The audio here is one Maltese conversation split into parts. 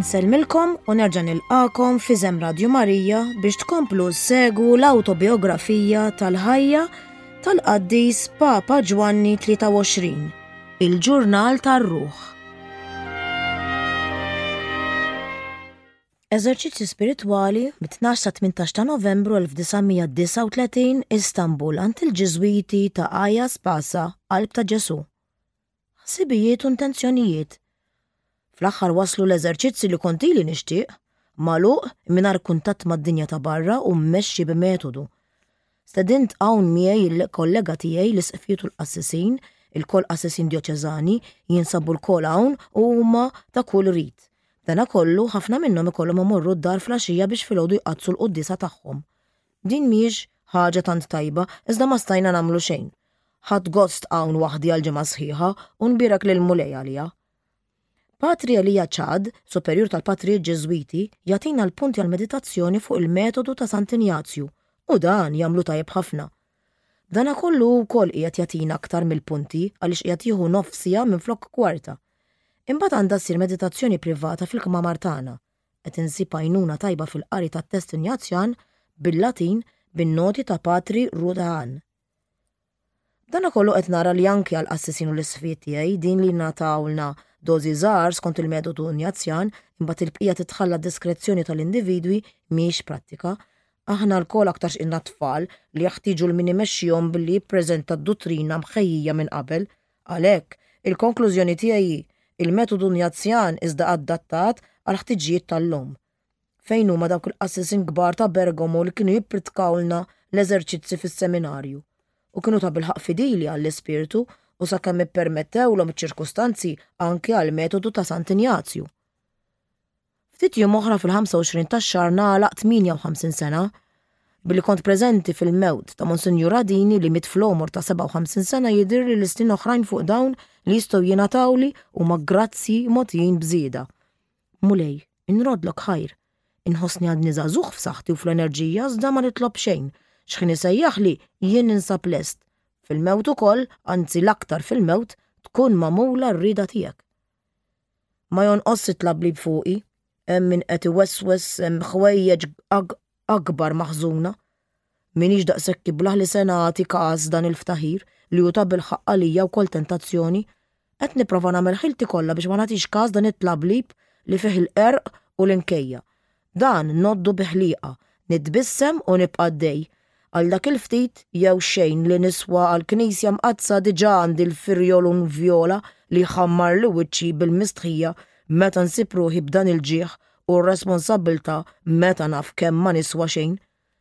Nsellmilkom u nerġa' nilqakom f'Iżem Radju Marija biex tkomplu ssegwu l-awtobiografija tal-ħajja tal-qaddis Papa Ġwanni 23, il-ġurnal tar-ruħ. Eżerċizzji spiritwali mit-12 sa 18 ta' Novembru 1939 Istanbul għand il-Ġiżwiti ta' Aya Spasa, Qalb ta' Ġesù. Ħsibijiet u intenzjonijiet. Fl-aħħar waslu l-eżerċizzi li kont ili nixtieq, magħluq, mingħajr kuntatt mad-dinja ta' barra u mmexxi b'metodu. Stedint hawn miegħi il-kollega tiegħi l-isqfijiet u l-qassisin, ilkoll qassisin djoċeżani, jinsabu lkoll hawn u huma ta' kull rit. B'danakollu, ħafna minnhom ikollhom imorru d-dar fl-għaxija biex filgħodu jqaddsu l-quddiesa tagħhom. Din mhijiex ħaġa tant tajba, iżda ma stajna nagħmlu xejn. Ħadt gost hawn waħdi għal ġimgħa sħiħa u nbierek lill-Mulej għaliha. Patri Elia Chad, superjur tal-Patrijiet Ġiżwiti, jagħtina l-punti għall-meditazzjoni fuq il-metodu ta' Sant'Injazju u dan jagħmlu tajjeb ħafna. B'danakollu hu wkoll qiegħed jagħtina aktar mill-punti għaliex qiegħed jieħu nofs siegħa minflok kwarta. Imbagħad għandha ssir meditazzjoni privata fil-kmamar tagħna. Qed insib għajnuna tajba fil-qari tat-test Injazjan bil-Latin bin-noti ta' Patri Rudahan. B'danakollu qed nara li anki għall-qassisin u l-isqfijiet tiegħi din li jingħatawlna dożi żgħar skont il-metodu Injazjan imbagħad il-bqija titħalla għad-diskrezzjoni tal-individwi mhix prattika. Aħna lkoll aktarx ilna tfal li jeħtieġu 'l min imexxihom billi jippreżenta d-duttrina mħejjija minn qabel. Għalhekk, il-konklużjoni tiegħi hi, il-metodu Injazjan iżda adattat għall-ħtiġijiet tal-lum. Fejn huma dawk il-qassisin kbar ta' Bergamo li kienu jippritkawlna l-eżerċizzi fis-seminarju? U kienu tabilħaqq fidili għall-ispirtu u sakemm ippermettewlhom iċ-ċirkustanzi anki għall-metodu ta' Sant'Injazju. Ftit jiem oħra fil-25 tax-xahar nagħlaq 58 sena. Billi kont preżenti fil-mewt ta' Monsinjur Adini li miet fl-għomor ta' 57 sena jidhirli li snin oħrajn fuq dawn li jistgħu jingħatawli huma grazzji mogħtijin b'żieda. Mulej, inroddlok ħajr. Inħossni għadni żagħżugħ f'saħħti u fl-enerġija iżda ma nitlob xejn. X'ħin isejjaħli, jien ninsab lest. Fil-mewt ukoll, anzi l-aktar fil-mewt, tkun magħmula r-rieda tiegħek. Ma jonqosx it-tlablib fuqi, hemm min qed iweswes hemm ħwejjeġ akbar maħżuna. M'iniex daqshekk iblah li se nagħti każ dan il-ftaħir, li hu tabilħaqq għalija wkoll tentazzjoni. Qed nipprova nagħmel ħilti kollha biex ma nagħtix każ dan it-tlablib li fih il-qerq u l-inkejja. Dan ngħoddu bi ħlieqa, nitbissem u nibqa' għaddej. Għal dak il-ftit jew xejn li niswa għall-Knisja Mqaddsa diġà għandi l-firjolun vjola li jħammarli wiċċi bil-mistħija meta nsib ruħi b'dan il-ġieħ u r-responsabbiltà meta naf kemm ma niswa xejn.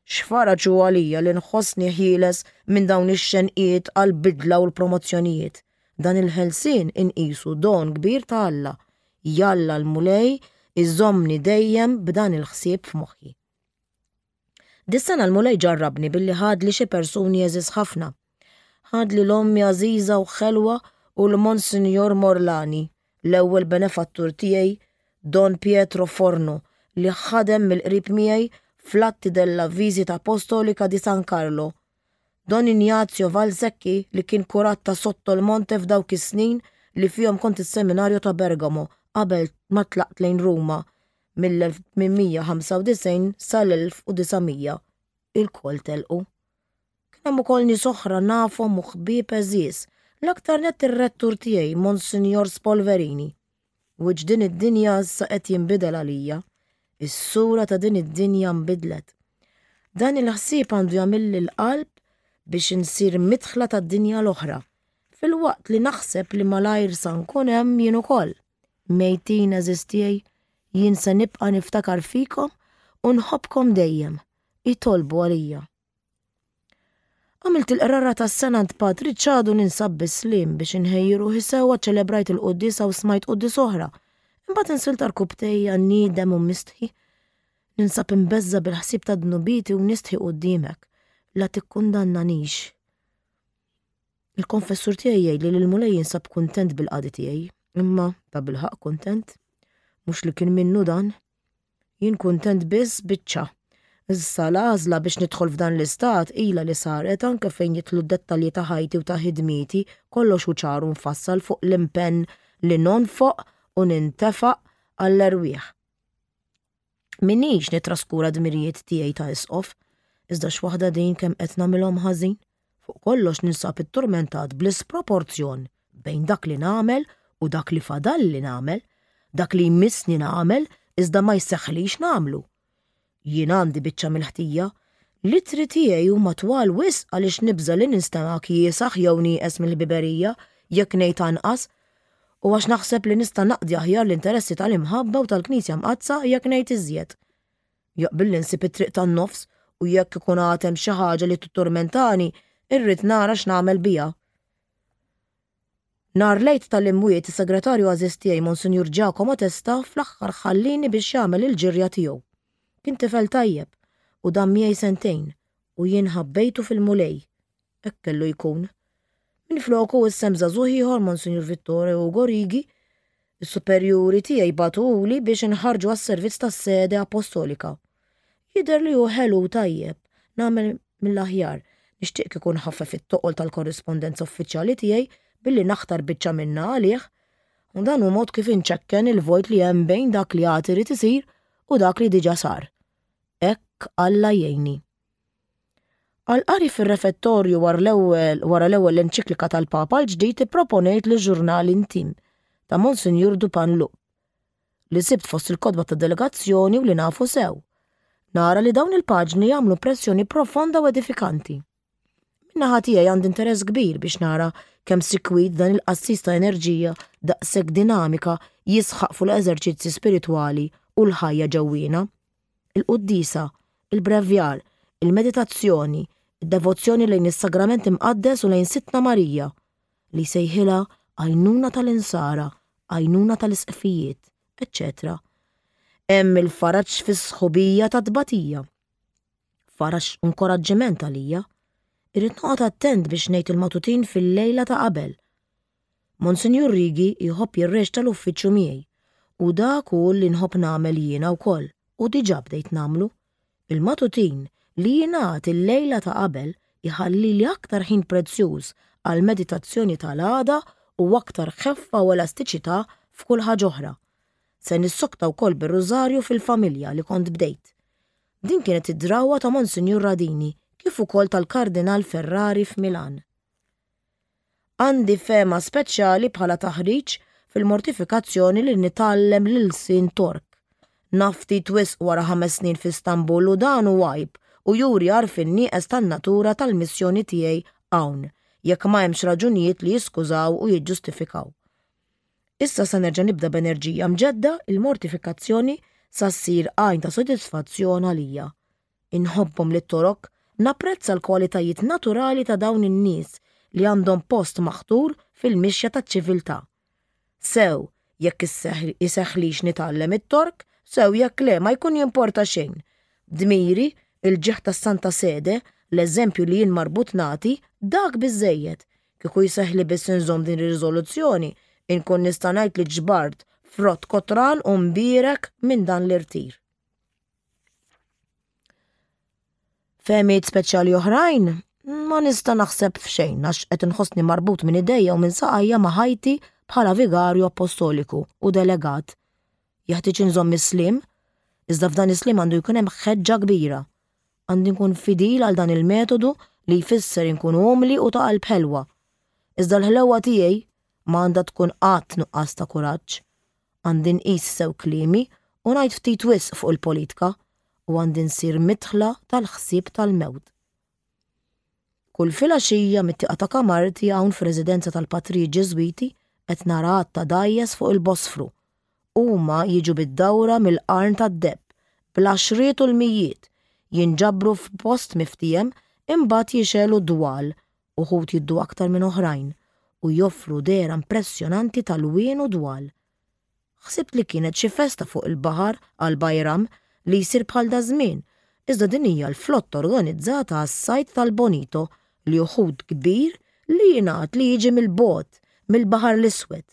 X'faraġ hu għalija li nħossni ħieles minn dawn ix-xenqiet għall-bidla u l-promozzjonijiet. Dan il-ħelsien inqisu don kbir ta' Alla. Jalla l-Mulej iżommni dejjem b'dan il-ħsieb f'moħħi. Dis-sena l-Mulej ġarrabni billi ħadli xi persuni għeżież ħafna. Ħadli l-ommi għażiża u ħelwa u l-Monsinjor Morlani, l-ewwel benefattur tiegħi Don Pietro Forno li ħadem mill-qrib miegħi fl-Atti della Visita Apostolica di San Carlo. Don Ignazio Valsecchi li kien kurat ta' Sotto il Monte f'dawk is-snin li fihom kont is-Seminarju ta' Bergamo qabel ma tlaqt lejn Ruma mill-1895 sal-1900 ilkoll telqu. Kien hemm ukoll nies oħra nafhom u ħbieb għeżież, l-aktar nett ir-rettur tiegħi Monsinjor Spolverini. Wiċċ din id-dinja issa qed jinbidel għalija. Is-sura ta' din id-dinja nbidlet. Dan il-ħsieb għandu jagħmilli l-qalb biex insir midħla tad-dinja l-oħra, filwaqt li naħseb li malajr sa nkun hemm jien ukoll. Mejtin għeżież tiegħi, jien se nibqa' niftakar fikom u nħobbkom dejjem. Itolbu għalija. Għamilt il-qrara tas-sena għand Patri Ċadu ninsab bis-sliem biex inħejji ruħi sewwa ċelebrajt il-quddiesa u smajt quddies oħra. Imbagħad insilt għarkupptejja niedem u mistħi. Ninsab imbeżża' bil-ħsieb ta' dnubieti u nistħi quddiemek. La tikkundannanix. Il-konfessur tiegħi jgħidli li l-Mulej jinsab kuntent bil-qadi tiegħi, imma tabilħaqq kuntent? Mhux li kien minnu dan. Jien kuntent biss biċċa. Issa l-għażla biex nidħol f'dan l-istat ilha li saret anke fejn jidħlu d-dettalji ta' ħajti u ta' ħidmieti, kollox hu ċar u mfassal fuq l-impenn li nonfoq u nintefaq għall-erwieħ. Minix nitraskura dmirijiet tiegħi ta' isqof, iżda x'waħda din kemm qed nagħmilhom ħażin. Fuq kollox ninsab itturmentat bl-isproporzjon bejn dak li nagħmel u dak li fadalli nagħmel, dak li jmissni nagħmel iżda ma jseħħlix nagħmlu. Jien għandi biċċa mill-ħtija. L-ittri tiegħi huma twal wisq għaliex nibża' li ninstema' kiesaħ jew nieqes mill-ħbiberija jekk ngħid anqas, u għax naħseb li nista' naqdi aħjar l-interessi tal-imħabba u tal-Knisja Mqaddsa jekk ngħid iżjed. Jaqbilli nsib it-triq tan-nofs u jekk ikun għad hemm xi ħaġa li titturmentani, irrid nara x'nagħmel biha. Nhar l-Għid tal-Imwiet is-segretarju għażiż tiegħi Monsinjur Giacomo Testa fl-aħħar ħallieni biex jagħmel il-ġirja tiegħu. Kien tifel tajjeb u dam miegħi sentejn u jien ħabbejtu fil-Mulej. Hekk kellu jkun. Minfloku issa hemm żagħżugħ ieħor Monsinjur Vittore Ugo Righi. Is-superjuri tiegħi bagħtuhuli biex inħarrġu għas-servizz tas-sede apostolika. Jidher li hu ħelu u tajjeb, nagħmel mill-aħjar. Nixtieq kieku nħaffef it-toqol tal-korrispondenza uffiċjali tiegħi billi naħtar biċċa minnha għalih. U dan hu mod kif inċekken il-vojt li hemm bejn dak li għad irid isir u dak li diġà sar. Hekk Alla jgħinni. Għall-qari fir-refettorju wara l-ewwel wara l-ewwel enċiklika tal-Papa l-ġdid ipproponejt Le Journal Intime ta' Monsinjur Dupanloup. li sibt fost il-kotba tad-delegazzjoni u li nafu sew. Nara li dawn il-paġni jagħmlu impressjoni profonda u edifikanti. Min-naħa tiegħi għandi interess kbir biex nara kemm sikwit dan il-qassis ta' enerġija daqshekk dinamika jisħaq fuq l-eżerċizzi spiritwali u l-ħajja ġewwiena. Il-quddiesa, il-brevjar, il-meditazzjoni, id-devozzjoni lejn is-Sagrament Imqaddes u lejn Sidtna Marija, li jsejħilha għajnuna tal-insara, għajnuna tal-isqfijiet, eċċetera Hemm il-faraġ fis-sħubija tat-tbatija. Faraġ u nkoraġġiment għalija. Irrid noqgħod attent biex ngħid il-matutin fil-lejla ta' qabel. Monsinjur Righi jħobb jirreċta l-uffiċċju miegħi u dak hu li nħobb nagħmel jiena wkoll u diġà bdejt nagħmlu. Il-matutin li jingħad il-lejla ta' qabel iħallili aktar ħin prezzjuż għall-meditazzjoni tal-għada u aktar ħeffa u elastiċità f'kull ħaġa oħra. Se nissokta wkoll bir-Rużarju fil-familja li kont bdejt. Din kienet id-drawwa ta' Monsinjur Radini kif ukoll tal-Kardinal Ferrari f'Milan. Għandi fehma speċjali bħala taħriġ fil-mortifikazzjoni li nitgħallem l-ilsien Tork. Naf ftit wisq wara ħames snin f'Istanbul u dan hu għajb u juri għarfien nieqes tan-natura tal-missjoni tiegħi hawn, jekk ma hemmx raġunijiet li jiskużaw u jiġġustifikaw. Issa se nerġa' nibda b'enerġija mġedda il-mortifikazzjoni sa ssir għajn ta' sodisfazzjon għalija. Inħobbhom lit-Torok, napprezza l-kwalitajiet naturali ta' dawn in-nies li għandhom post maħtur fil-mixja taċ-ċiviltà. Sew jekk iseħħlix nitgħallem it-Tork, sew jekk le ma jkun jimporta xejn. Dmiri, il-ġieħ tas-Santa Sede, l-eżempju li jien marbut nagħti, dak biżżejjed. Kieku jseħħli biss inżomm din ir-riżoluzzjoni, inkun nista' ngħid li ġbart frott kotran u mbierek minn dan l-irtir. Fehmiet speċjali oħrajn? Ma nista' naħseb f'xejn għax qed inħossni marbut minn idejja u minn saqajja ma' ħajti bħala vigarju appostoliku u delegat. Jeħtieġ inżomm is-sliem, iżda f'dan is-sliem għandu jkun hemm ħeġġa kbira. Għandi nkun fidil għal dan il-metodu li jfisser inkun umli u ta' qalb ħelwa. Iżda l-ħlewwa tiegħi ma għandha tkun qatt nuqqas ta' kuraġġ. Għandi nqis sew kliemi u ngħid ftit wisq fuq il-politka u għandi nsir midħla tal-ħsieb tal-mewt. Kull filgħaxija mit-tieqa ta' kamarti hawn fir-residenza tal-patrijiet Ġiżwiti qed nara għadd ta' dgħajjes fuq il-Bosfru. Huma jiġu bid-dawra mill-Qarn tad-Deheb, bl-għaxriet u l-mijiet, jinġabru f'post miftiehem imbagħad jixegħlu dwal uħud jiddu aktar minn oħrajn u joffru dehra impressjonanti ta' lwien u dwal. Ħsibt li kienet xi festa fuq il-baħar għal Bayram li jsir bħal daż-żmien, iżda din hija l-flotta organizzata għas-sajd tal-bonito li hu ħut kbir li jingħad li jiġi mill-bogħod, mill-Baħar l-Iswed.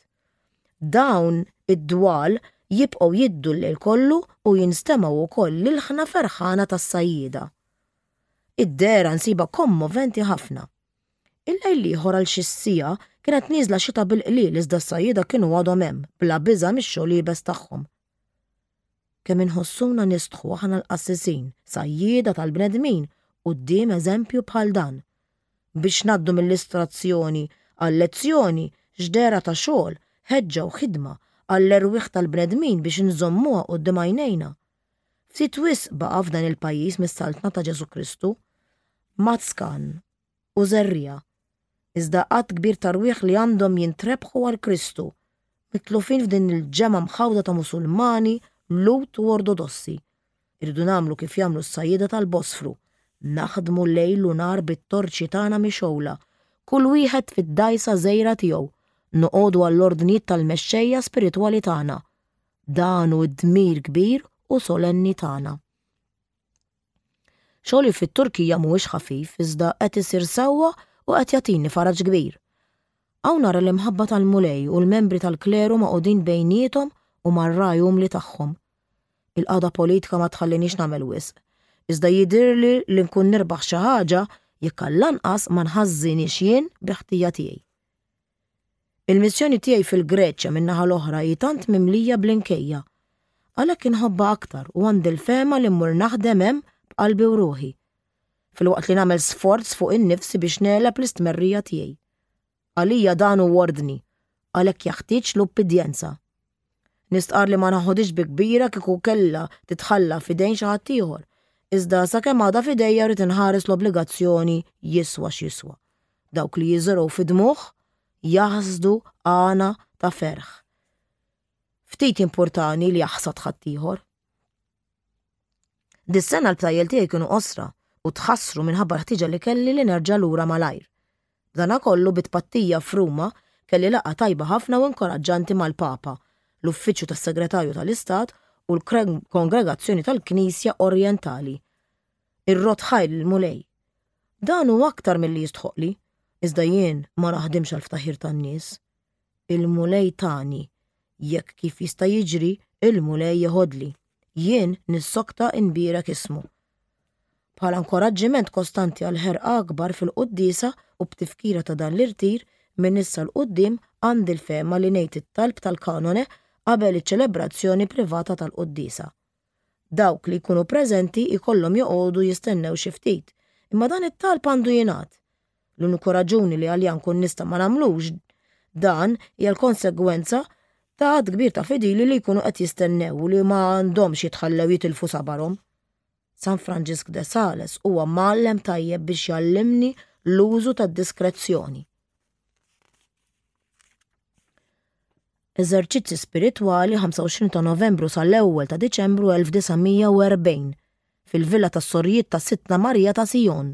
Dawn id-dwal jibqgħu jiddu l-lejl kollu u jinstemgħu wkoll l-ilħna ferħana tas-sajjieda. Id-dehra nsibha kommoventi ħafna. Il-lejl l-ieħor għal xi siegħa kienet nieżla xita bil-qliel iżda s-sajjieda kienu għadhom hemm, bla biża' mix-xogħol iebes tagħhom. Kemm inħossuna nistħu aħna l-qassisin, sajjieda tal-bnedmin, quddiem eżempju bħal dan. Biex ngħaddu mill-istrazzjoni għal-lezzjoni, x'dehra ta' xogħol, ħeġġa u ħidma għall-erwieħ tal-bnedmin biex inżommuha quddiem għajnejna. Ftit wisq baqa' f'dan il-pajjiż mis-Saltna ta' Ġesù Kristu. Mazkan u żerriegħa, iżda għadd kbir ta' rwieħ li għandhom jintrebħu għal Kristu, mitlufin f'din il-ġemgħa mħawda ta' Musulmani, Lhud u Ortodossi. Irridu nagħmlu kif jagħmlu s-sajjieda tal-Bosfru, naħdmu lejl u nhar bit-torċi tagħna mixgħula, kull wieħed fid-dgħajsa żgħira tiegħu, noqogħdu għall-ordnijiet tal-mexxejja spiritwali tagħna. Dan hu d-dmir kbir u solenni tagħna. Xogħli fit-Turkija mhuwiex ħafif iżda qed isir sewwa u qed jagħtini faraġ kbir. Hawn nara l-imħabba tal-Mulej u l-membri tal-kleru magħqudin bejniethom u mar-ragħaj umli tagħhom. Il-qagħda politika ma tħallinix nagħmel wisq, iżda jidhirli li nkun nirbaħ xi ħaġa jekk għall-anqas ma nħażżinhiex jien bi ħtija tiegħi. Il-missjoni tiegħi fil-Greċja min-naħa l-oħra hi tant mimlija bl-inkejja. Għalhekk inħobbha aktar u għandi l-fehma li mmur naħdem hemm b'qalbi u ruħi. Filwaqt li nagħmel sforz fuq innifsi biex negħleb l-istmerrija tiegħi. Għalija dan hu ordni, għalhekk jaħtieġ l-ubbidjenza. Nistqarr li ma naħodhiex bi kbira kieku kellha titħalla f'idejn xi ħadd ieħor, iżda sakemm għadha f'idejja rrid inħares l-obbligazzjoni jiswa x'jiswa. Dawk li jiżirgħu fid-dmugħ jaħsdu għana ta' ferħ. Ftit jimpurtani li jaħsad ħaddieħor. Dis-sena l-btajjel tiegħi kienu qosra u tħassru minħabba l-ħtieġa li kelli li nerġa' lura malajr. B'danakollu bi tpattija f'Ruma kelli laqgħa tajba ħafna u inkoraġġanti mal-Papa, l-Uffiċċju tas-Segretarju tal-Istat u l-Kongregazzjoni tal-Knisja Orjentali. Irrodd ħajr lill-Mulej. Dan hu aktar milli jistħoqqli, iżda jien ma naħdimx għall-ftaħir tan-nies. Il-Mulej tani, jekk kif jista' jiġri, il-Mulej jeħodli. Jien nissokta nbierek ismu. Bħala nkoraġġiment kostanti għal ħerqa akbar fil-quddiesa u b'tifkira ta' dan l-irtir, minn issa 'l quddiem għandi l-fehma li ngħid it-talb tal-kanone qabel iċ-ċelebrazzjoni privata tal-quddiesa. Dawk li jkunu preżenti jkollhom joqogħdu jistennew xi ftit, imma dan it-talb għandu jingħad. L-uniku raġuni li għalija nkun nista' ma nagħmlux dan hija l-konsegwenza ta' għadd kbir ta' fidili li jkunu qed jistennew u li ma għandhomx jitħallew jitilfu sabarhom. San Franġisk de Sales huwa mgħallem tajjeb biex jgħallimni l-użu tad-diskrezzjoni. Eżerċizzi Spiritwali 25 ta' Novembru sal-ewwel ta' Diċembru 1940 fil-Villa tas-Sorijiet ta' Sidtna Marija ta' Sion.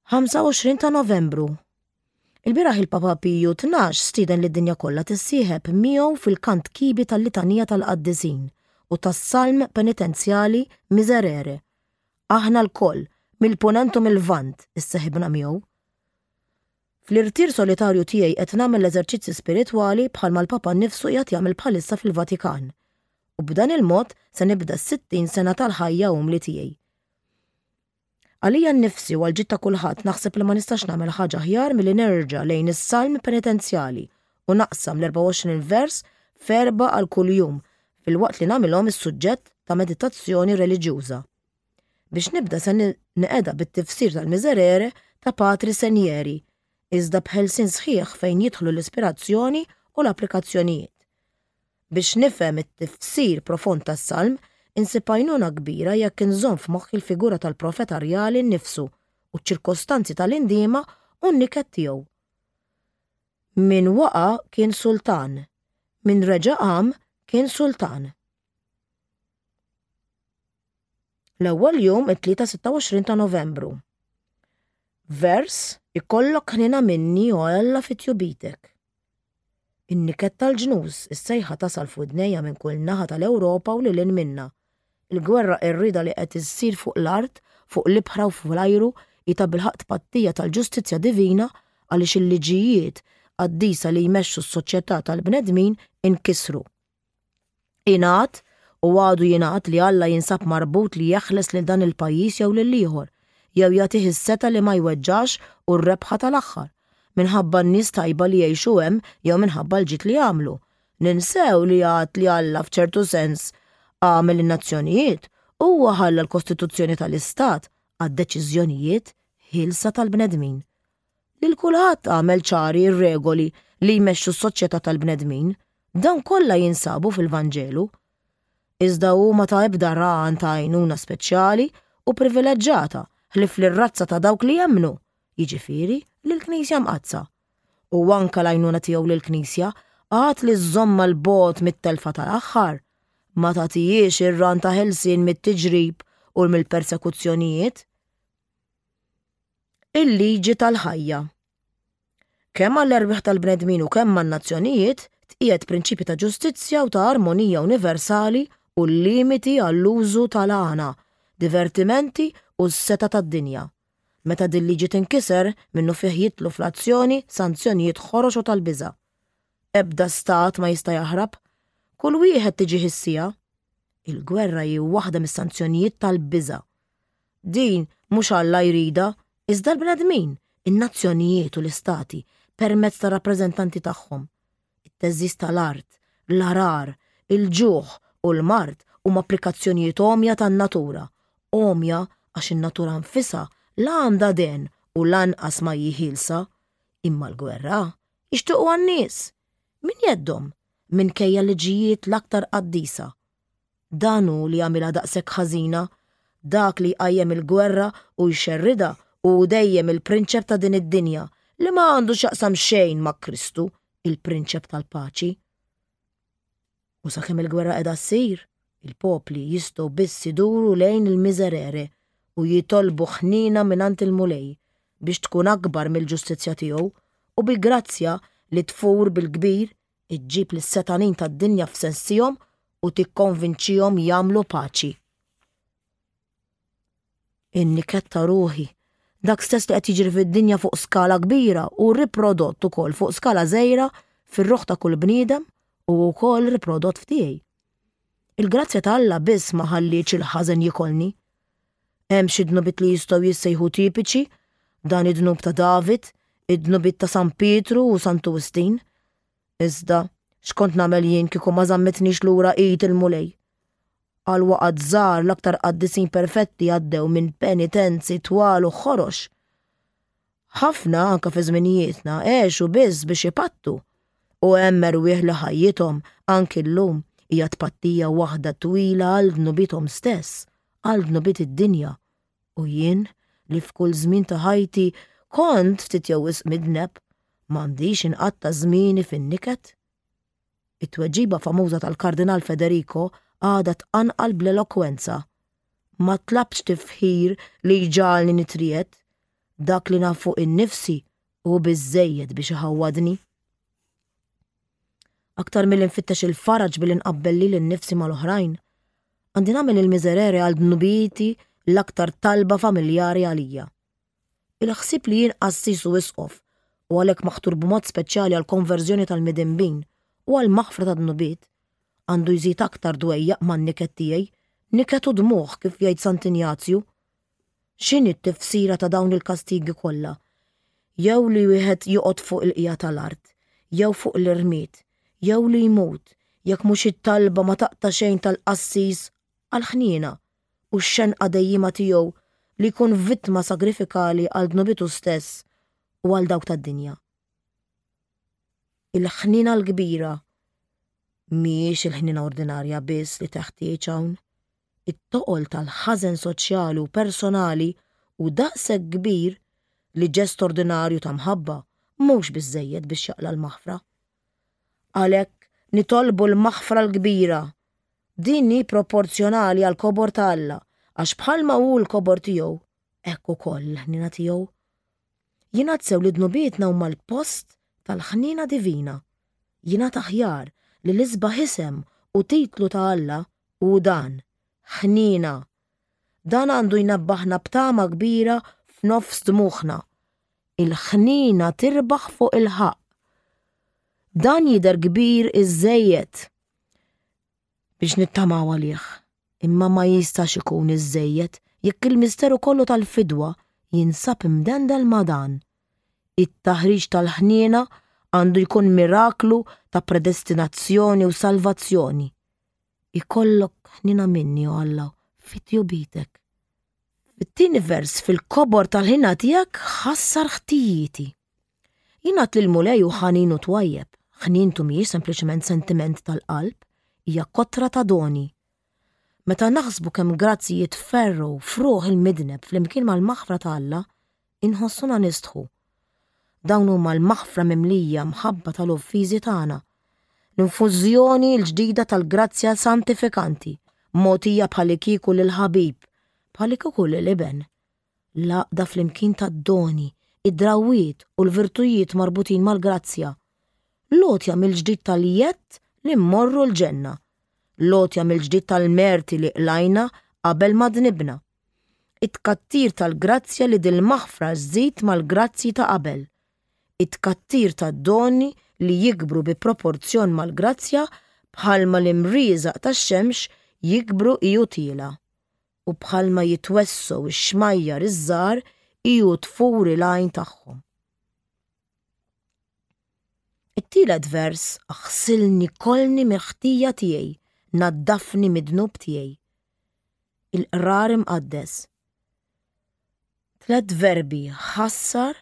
25 ta' Novembru Ilbieraħ il-Papa Piju 12 stieden lid-dinja kollha tissieħeb miegħu fil-kant kibi tal-Litanija tal-Qaddisin u tas-Salm Penitenzjali Miserere. Aħna lkoll, mill-Punent u mil-Lvant, isseħibna miegħu. Fl-irtir solitarju tiegħi qed nagħmel l-eżerċizzi spiritwali bħalma l-Papa nnifsu qiegħed jagħmel bħalissa fil-Vatikan. U b'dan il-mod se nibda s-60 sena tal-ħajja umli tiegħi. Għalija nnifsi u għall-ġid ta' kulħadd naħseb li ma nistax nagħmel ħaġa aħjar milli nerġa' lejn is-salm penitenzjali u naqsam l-24 vers f'erbgħa għal kull jum filwaqt li nagħmilhom is-suġġett ta' meditazzjoni reliġjuża. Biex nibda se neqeda bit-tifsir tal-Miserere ta' Patri Senieri, iżda b'ħelsien sħiħ fejn jidħlu l-ispirazzjoni u l-applikazzjonijiet. Biex nifhem it-tifsir profond tas-salm, insib għajnuna kbira jekk inżomm f'moħħi l-figura tal-profeta rjali nnifsu u ċ-ċirkostanzi tal-indiema u n-niket tiegħu. Min waqa' kien sultan, min reġa' qam kien sultan. L-ewwel jum it-Tlieta 26 ta' Novembru. Vers Ikollok ħniena minni o Alla fi tjubitek. In-niket tal-ġnus, is-sejħa tasal f'widnejja minn kull naħa tal-Ewropa u lil hinn minnha. Il-gwerra qerrieda li qed issir fuq l-art, fuq l-ibħra u fl-ajru hi tabilħaqq tpattija tal-ġustizzja divina għaliex il-liġijiet qaddisa li jmexxu s-soċjetà tal-bnedmin inkisru. Ingħad u għadu jingħad li Alla jinsab marbut li jeħles lil dan il-pajjiż jew lill-ieħor, jew jagħtih is-setgħa li ma jweġġax u r-rebħa tal-aħħar, minħabba n-nies tajba li jgħixu hemm jew minħabba l-ġid li jagħmlu. Ninsew li għad li Alla f'ċertu sens għamel in-nazzjonijiet, huwa ħalla l-kostituzzjoni tal-istat għad-deċiżjonijiet ħielsa tal-bnedmin. Lil kulħadd għamel ċari r-regoli li jmexxu s-soċjetà tal-bnedmin, dawn kollha jinsabu fil-Vanġelu. Iżda hu ma ta ebda rahan ta' għajnuna speċjali u privileġġata ħlief lir-razza ta' dawk li jemmnu, jiġifieri lill-Knisja Mqaddsa. U anke l-għajnuna tiegħu lill-Knisja għad li żżommha 'l bogħod mit-telfa tal-aħħar, ma tagħtihiex ir-ran ta' ħelsien mit-tiġrib u mill-persekuzzjonijiet. Il-liġi tal-ħajja. Kemm għall-erwieħ tal-bnedmin u kemm għan-nazzjonijiet tqiegħed prinċipji ta' ġustizzja u ta' armonija universali u l-limiti għall-użu tal-għana, divertimenti u s-setgħa tad-dinja. Meta dil-liġi tinkiser, minnufih jidħlu fl-azzjoni sanzjonijiet ħorox u tal-biża'. Ebda stat ma jista' jaħrab. Kull wieħed tiġih is-siegħa. Il-gwerra hi waħda mis-sanzjonijiet tal-biża'. Din mhux Alla jridha, iżda l-bnedmin, in-nazzjonijiet u l-istati, permezz tar-rappreżentanti tagħhom. It-theżżiż tal-art, l-għarar, il-ġuħ u l-mard huma applikazzjonijiet għomja tan-natura, għomja għax in-natura nfisha la għandha dehen u lanqas ma hi ħielsa. Imma l-gwerra jixtiequha n-nies, minn jeddhom, minkejja l-liġijiet l-aktar qaddisa. Dan hu li jagħmilha daqshekk ħażina. Dak li jqajjem il-gwerra u jxerridha hu dejjem il-prinċep ta' din id-dinja, li ma għandu x'jaqsam xejn ma' Kristu, il-Prinċep tal-Paċi. U sakemm il-gwerra qiegħda ssir, il-popli jistgħu biss iduru lejn il-Miserere u jitolbu ħniena mingħand il-Mulej biex tkun akbar mill-ġustizzja tiegħu u bi grazzja li tfur bil-kbir iġġib lis-setgħanin tad-dinja f'sensihom u tikkonvinċihom jagħmlu paċi. In-niket ta' ruħi, dak stess li qed jiġri fid-dinja fuq skala kbira u riprodott ukoll fuq skala żgħira fir-ruħ ta' kull bniedem u wkoll riprodott f'tiegħi. Il-grazzja ta' Alla biss ma ħallietx il-ħażen jikolni. Hemm xi dnubiet li jistgħu jissejħu tipiċi, dan id-dnub ta' David, id-dnubiet ta' San Pietru u Santu Wistin. Iżda, x'kont nagħmel jien kieku ma żammitnix lura id il-Mulej? Għal waqgħat żgħar l-aktar qaddisin perfetti għaddew minn penitenzi twal u ħorox. Ħafna, anke fi żminijietna, għexu biss biex ipattu. U hemm erwieħ li ħajjithom, anki llum, hija tpattija waħda twila għal dnubiethom stess, għal dnubiet id-dinja. U jien, li f'kull żmien ta' ħajti kont ftit jew wisq midneb, m'għandix inqatta' żmieni fin-niket? It-tweġiba famuża tal-Kardinal Federico għadha tqanqal bl-elokwenza, Ma tlabtx tifħir li jġagħalni nitriegħed, dak li naf fuq innifsi hu biżżejjed biex iħawwadni. Aktar milli nfittex il-faraġ billi nqabbel lili nnifsi mal-oħrajn, għandi nagħmel il-miserere għal dnubieti l-aktar talba familjari għalija. Il-ħsieb li jien qassis u isqof, u għalhekk maħtur b'mod speċjali għall-konverżjoni tal-midinbin u għall-maħfra tad-dnubiet, għandu jżid aktar dwejjaq man-niket tiegħi, niket u dmugħ kif jgħid Sant'Injazju. X'inhi t-tifsira ta' dawn il-kastigi kollha? Jew li wieħed joqgħod fuq il-qiegħa tal-art, jew fuq l-irmied, jew li jmut, jekk mhux it-talba ma taqta' xejn tal-qassis għall-ħniena u x-xenqa dejjiema tiegħu li jkun vittma sagrifikali għal dnubietu stess u għal dawk tad-dinja. Il-ħniena l-kbira mhijiex il-ħniena ordinarja biss li teħtieġ hawn. It-toqol tal-ħażen soċjali u personali hu daqshekk kbir li ġest ordinarju ta' mħabba mhux biżżejjed biex jaqla' l-maħfra. Għalhekk nitolbu l-maħfra l-kbira Din hi proporzjonali għall-kobor ta' Alla, għax bħalma hu l-kobor tiegħu, hekk ukoll l-ħniena tiegħu. Jingħad sew li dnubietna huma l-post tal-ħniena divina. Jingħad aħjar li l-isbaħ isem u titlu ta' Alla hu dan, Ħniena. Dan għandu jnebbaħna b'tama kbira f'nofs dmugħna. Il-ħniena tirbaħ fuq il-ħaqq. Dan jidher kbir iżżejjed. biex nittamaw għalih, imma ma jistax ikun iżżejjed jekk il-misteru kollu tal-fidwa jinsab imdendel ma' dan. It-taħriġ tal-ħniena Għandu jkun miraklu ta' predestinazzjoni u salvazzjoni. Ikollok ħnina minni, o Alla, fit-tjubitek. Fit-tieni vers fil-kobor tal-ħina tiegħek ħassar ħtijieti. Jingħad li l-Mulej hu ħanin u twajjeb. Ħnientu mhijiex sempliċement sentiment tal-qalb, hija kotra ta' doni. Meta naħsbu kemm grazzji jitferrgħu f'ruħ il-midneb flimkien mal-maħfra ta' Alla, inħossuna nistħu. Dawn huma l-maħfra mimlija mħabba tal-offiżi tagħna, l-infużjoni l-ġdida tal-grazzja santifikanti, mogħtija bħalikieku lill-ħabib, bħalikieku lil iben. L-għaqda flimkien tad-doni, id-drawwiet u l-virtujiet marbutin mal-grazzja. L-għotja mill-ġdid tal-jedd li mmorru l-ġenna. L-għotja mill-ġdid tal-merti li qlajna qabel ma dnibna. It-tkattir tal-grazzja li dil-maħfra żżid mal-grazzji ta' qabel. It-tkattir tad-doni li jikbru bi proporzjon mal-grazzja bħalma l-imrieżaq tax-xemx jikbru hi u tiela'. u bħalma jitwessgħu x-xmajjar iż-żgħar hi u tfur il-għajn tagħhom. It-tielet vers aħsilni kollni mill-ħtija tiegħi, naddafni mid-dnub tiegħi. Il-qrar imqaddes. Tlett verbi ħassar,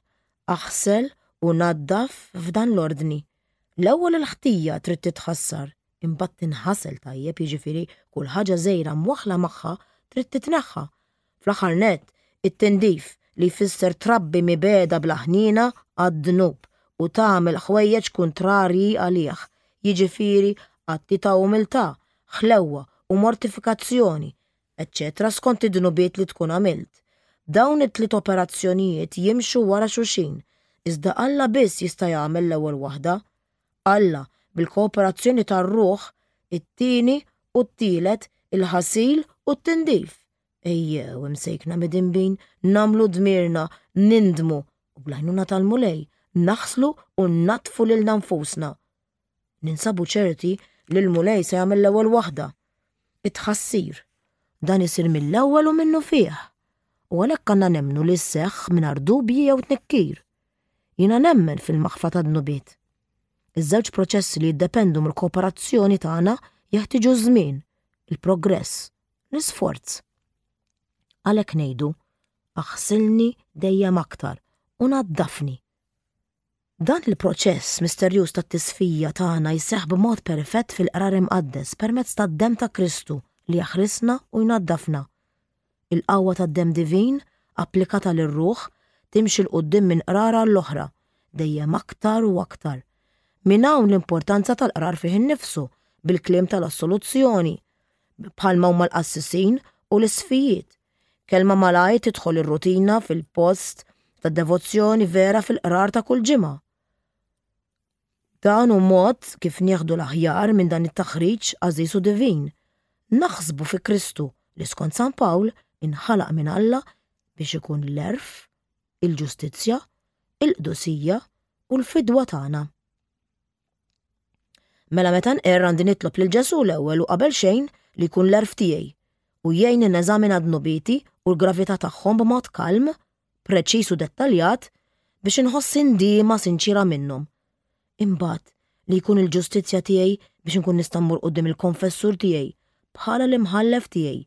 aħsel u naddaf f'dan l-ordni. L-ewwel il-ħtija trid titħassar, imbagħad tinħasel tajjeb jiġifieri kull ħaġa żgħira mwaħħla magħha trid titneħħa. Fl-aħħar nett, it-tindif, li jfisser trabbi mibegħda bla ħniena għad-dnub u tagħmel ħwejjeġ kuntrarji għalih, jiġifieri atti ta' umiltà, ħlewwa u mortifikazzjoni, eċċetera skont id-dnubiet li tkun għamilt. Dawn it-tliet operazzjonijiet jimxu wara xulxin, iżda Alla biss jista' jagħmel l-ewwel waħda. Alla, bil-kooperazzjoni tar-ruħ, it-tieni u t-tielet, il-ħasil u t-tindif. Ejjew, imsejkna midinbin, nagħmlu dmirna, nindmu u bl-għajnuna tal-Mulej naħslu u nnaddfu lilna nfusna. Ninsabu ċerti li l-Mulej se jagħmel l-ewwel waħda. It-tħassir. Dan isir mill-ewwel u minnufih. U għalhekk għandna nemmnu li sseħħ mingħajr dubji jew tnikkir. Jiena nemmen fil-maħfra tad-dnubiet. Iż-żewġ proċessi li jiddependu mill-kooperazzjoni tagħna jeħtieġu ż-żmien, il-progress, l-isforz. Għalhekk ngħidu, aħsilni dejjem aktar u naddafni. Dan il-proċess misterjuż tat-tisfija tagħna jseħħ b'mod perfett fil-Qrar Imqaddes permezz tad-demm ta' Kristu li jaħrisna u jnaddafna. Il-qawwa tad-demm divin, applikata lir-ruħ, timxi 'l quddiem minn qrar għall-oħra, dejjem aktar u aktar. Minn hawn l-importanza tal-qrar fih innifsu, bil-kliem tal-assoluzzjoni, bħalma huma l-qassisin u l-isqfijiet, Kelma malajr tidħol ir-rutina fil-post ta' devozzjoni vera fil-qrar ta' kull ġimgħa. Dan hu mod kif nieħdu l-aħjar minn dan it-taħriġ għażiż u divin. Naħsbu fi Kristu li skont San Pawl inħalaq minn Alla biex ikun l-għerf, il-ġustizzja, il-qdusija u l-fidwa tagħna. Mela meta nqerr għandi nitlob lil Ġesù l-ewwel u qabel xejn li jkun l-għerf tiegħi u jgħinni neżamina dnubieti u l-gravità tagħhom b'mod kalm, preċiż u dettaljat biex inħoss indiema sinċiera minnhom. Imbagħad li jkun il-ġustizzja tiegħi biex inkun nista' mmur quddiem il-konfessur tiegħi bħala l-imħallef tiegħi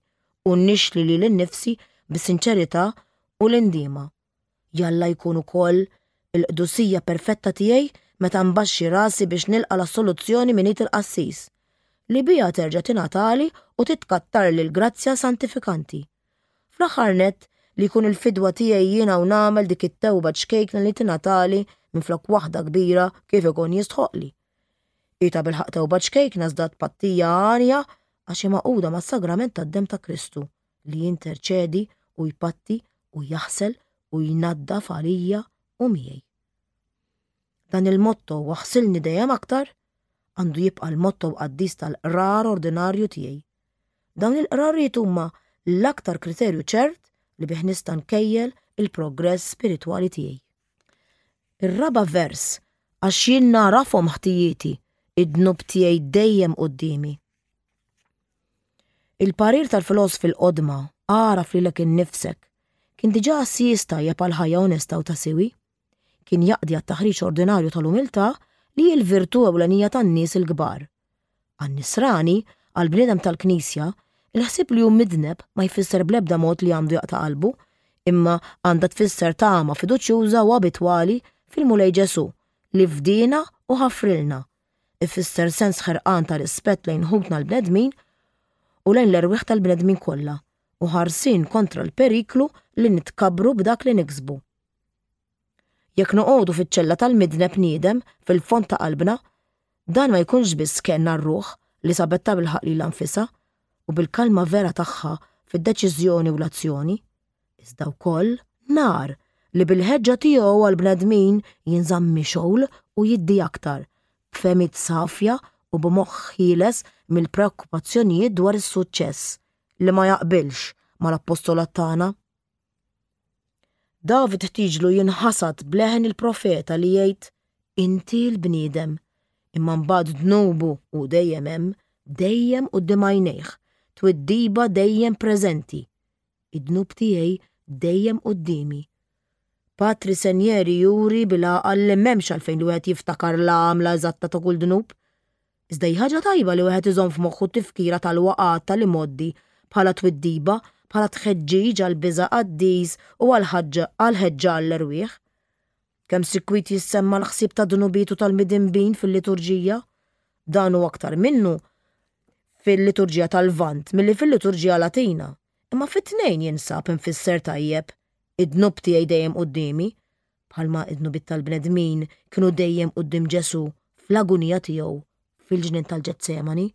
u nixli lili nnifsi bis-sinċerità u l-indiema. Jalla jkun ukoll il-qdusija perfetta tiegħi meta nbaxxi rasi biex nilqa' l-assoluzzjoni minn id il-qassis, li biha terġa' tingħatali u titkattarli l-grazzja santifikanti. Fl-aħħar nett, li jkun il-fidwa tiegħi jiena u nagħmel dik it-tewba ċkejkna li tingħatali minflok waħda kbira kif ikun jistħoqqli. Hi tabilħaqq tewba ċkejkna iżda tpattija għanja għax hi magħquda mas-sagrament tad-demm ta' Kristu li jinterċedi u jpatti u jaħsel u jnaddaf għalija u miegħi. Dan il-motto waħsilni dejjem aktar għandu jibqa' l-motto qaddis tal-qrar ordinarju tiegħi. Dawn il-qrarijiet huma l-aktar kriterju ċert li bih nista' nkejjel il-progress spiritwali tiegħi. Ir-raba' vers għax jien nagħrafhom ħtijieti, id-dnub tiegħi dejjem quddiemi. Il-parir tal-filosfi l-qodma, agħraf lilek innifsek, kien diġà għassies tajjeb għal ħajja onesta u ta' siwi. Kien jaqdi għat-taħriġ ordinarju tal-umiltà li hi l-virtù ewlenija tan-nies il-kbar. Għan-Nisrani, għall-bniedem tal-Knisja, il-ħsieb li hu midneb ma jfisser bl-ebda mod li għandu jaqta' qalbu, imma għandha tfisser tama fiduċjuża u abitwali fil-Mulej Ġesù li fdiena u ħafrilna. Ifisser sens ħerqan ta' rispett lejn ħutna l-bnedmin u lejn l-erwieħ tal-bnedmin kollha u ħarsien kontra l-periklu li nitkabbru b'dak li niksbu. Jekk noqogħdu fiċ-ċella tal-midneb niedem fil-fond ta' qalbna, dan ma jkunx biss kenn għar-ruħ li sabet tabilħaqq lilha nfisha u bil-kalma vera tagħha fid-deċiżjoni u l-azzjoni, iżda wkoll nar li bil-ħeġġa tiegħu għall-bnedmin jinżamm mixgħul u jiddi aktar, b'fehmiet safja u b'moħħ ħieles mill-preokkupazzjonijiet dwar is-suċċess li ma jaqbilx mal-appostolat tagħna. David ħtieġlu jinħasad b'leħen il-profeta li jgħid, Inti l-bniedem. Imma mbagħad dnubu hu dejjem hemm, dejjem quddiem għajnejh, twiddiba dejjem preżenti. Id-dnub tiegħi dejjem quddiemi. Patri Senjeri juri bil-għaqal li m'hemmx għalfejn li wieħed jiftakar l-għamla eżatta ta' kull dnub. Iżda hi ħaġa tajba li wieħed iżomm f'moħħu t-tifkira tal-waqgħat tal-imgħoddi bħala twiddiba, bħala tħeġġiġ għall-biża' qaddis u għall-ħeġġa għall-erwieħ. Kemm sikwit jissemma l-ħsieb tad-dnubiet u tal-midinbin fil-liturġija? Dan hu aktar minnu fil-liturġija tal-Lvant milli fil-liturġija Latina, imma fit-tnejn jinsab imfisser tajjeb, Id-dnub tiegħi dejjem quddiemi, bħalma d-dnubiet tal-bnedmin kienu dejjem quddiem Ġesù fl-agunija tiegħu fil-ġnien tal-Ġetsemani,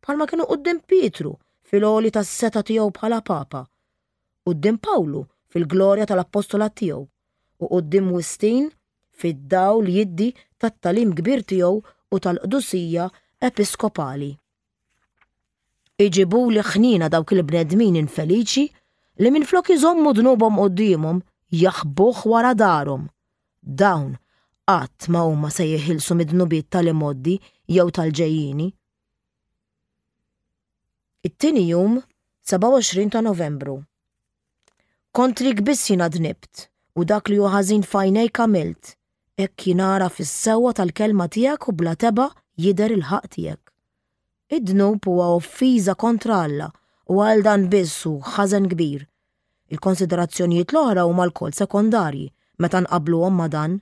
bħalma kienu quddiem Pietru fil-għoli tas-setgħa tiegħu bħala Papa, quddiem Pawlu fil-glorja tal-appostolat tiegħu, u quddiem Wistin fid-dawl jiddi tat-tagħlim kbir tiegħu u tal-qdusija episkopali. Iġibuli ħniena dawk il-bnedmin infeliċi li minflok iżommu dnubhom quddiemhom jaħbuh wara darhom. Dawn qatt ma huma se jeħilsu mid-dnubiet tal-imgħoddi jew tal-ġejjieni. It-tieni jum, 27 ta' Novembru. Kontrik biss jiena dnibt, u dak li hu ħażin f'għajnejk għamilt, hekk jingħaraf is-sewwa tal-kelma tiegħek u bla tebgħa jidher il-ħaqq tiegħek. Id-dnub huwa offiża kontra Alla u għal dan biss hu ħażen kbir. Il-konsiderazzjonijiet l-oħra huma lkoll sekondarji meta nqabbluhom ma' dan.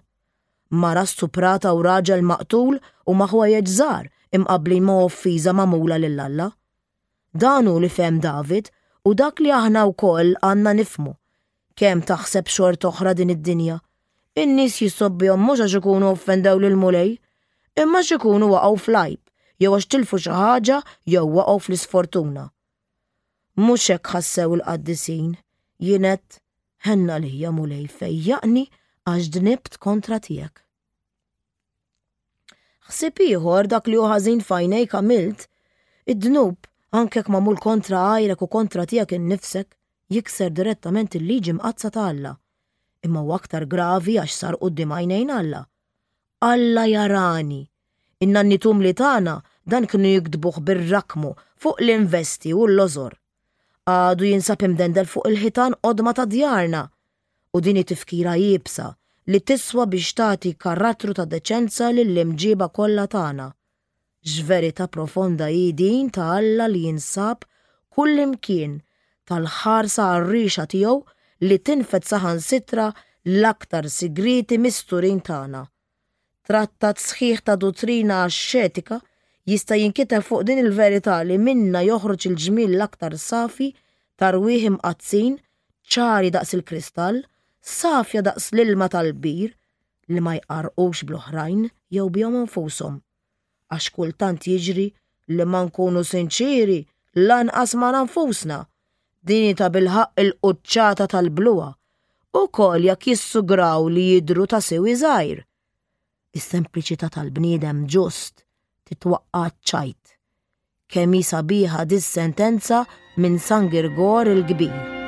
Mara stuprata u raġel maqtul huma ħwejjeġ żgħar imqabblin ma' offiża magħmula lil Alla. Dan hu li fehem David u dak li aħna wkoll għandna nifhmu. Kemm taħseb xort'oħra din id-dinja. In-nies jissobbihom mhux għax ikunu offendew lill-Mulej, imma għax ikunu waqgħu fl-għajb, jew għax tilfu xi ħaġa jew waqgħu fl-isfortuna. Mhux hekk ħassew il-qaddisin, jien għedt, Ħenn għalija, Mulej, fejjaqni għax dnibt kontra tiegħek. Ħsieb ieħor dak li hu ħażin f'għajnejk għamilt, id-dnub, anke jekk magħmul kontra għajrek u kontra tiegħek innifsek, jikser direttament il-liġi mqaddsa ta' Alla. Imma huwa aktar gravi għax sar quddiem għajnejn Alla. Alla jarani. In-nanniet umli tagħna dan kienu jiktbuh bir-rakmu fuq l-investi u l-lożor. Għadu jinsab imdendel fuq il-ħitan qodma ta' djarna. U din hi tifkira iebsa li tiswa biex tagħti karattru ta' deċenza lill-imġiba kollha tagħna. X'verità profonda hi din ta' Alla li jinsab kullimkien, tal-ħarsa għarriexa tiegħu li tinfed saħansitra l-aktar sigrieti misturin tagħna. Trattat sħiħ ta' duttrina axxetika jista' jinkiteb fuq din il-verità li minnha joħroġ il-ġmiel l-aktar safi ta' rwieħ imqaddsin, ċari daqs il-kristall, safja daqs l-ilma tal-bir, li ma jqarrqux bl-oħrajn jew bihom infushom. Għax kultant jiġri li ma nkunu sinċieri lanqas magħna nfusna. Din hi tabilħaqq il-quċċata tal-bluha, ukoll jekk jissugraw li jidhru ta' siwi żgħir. Is-sempliċità tal-bniedem ġust titwaqqa' għaċ-ċajt. Kemm hi sabiħa dis-sentenza minn San Girgor il-Kbir.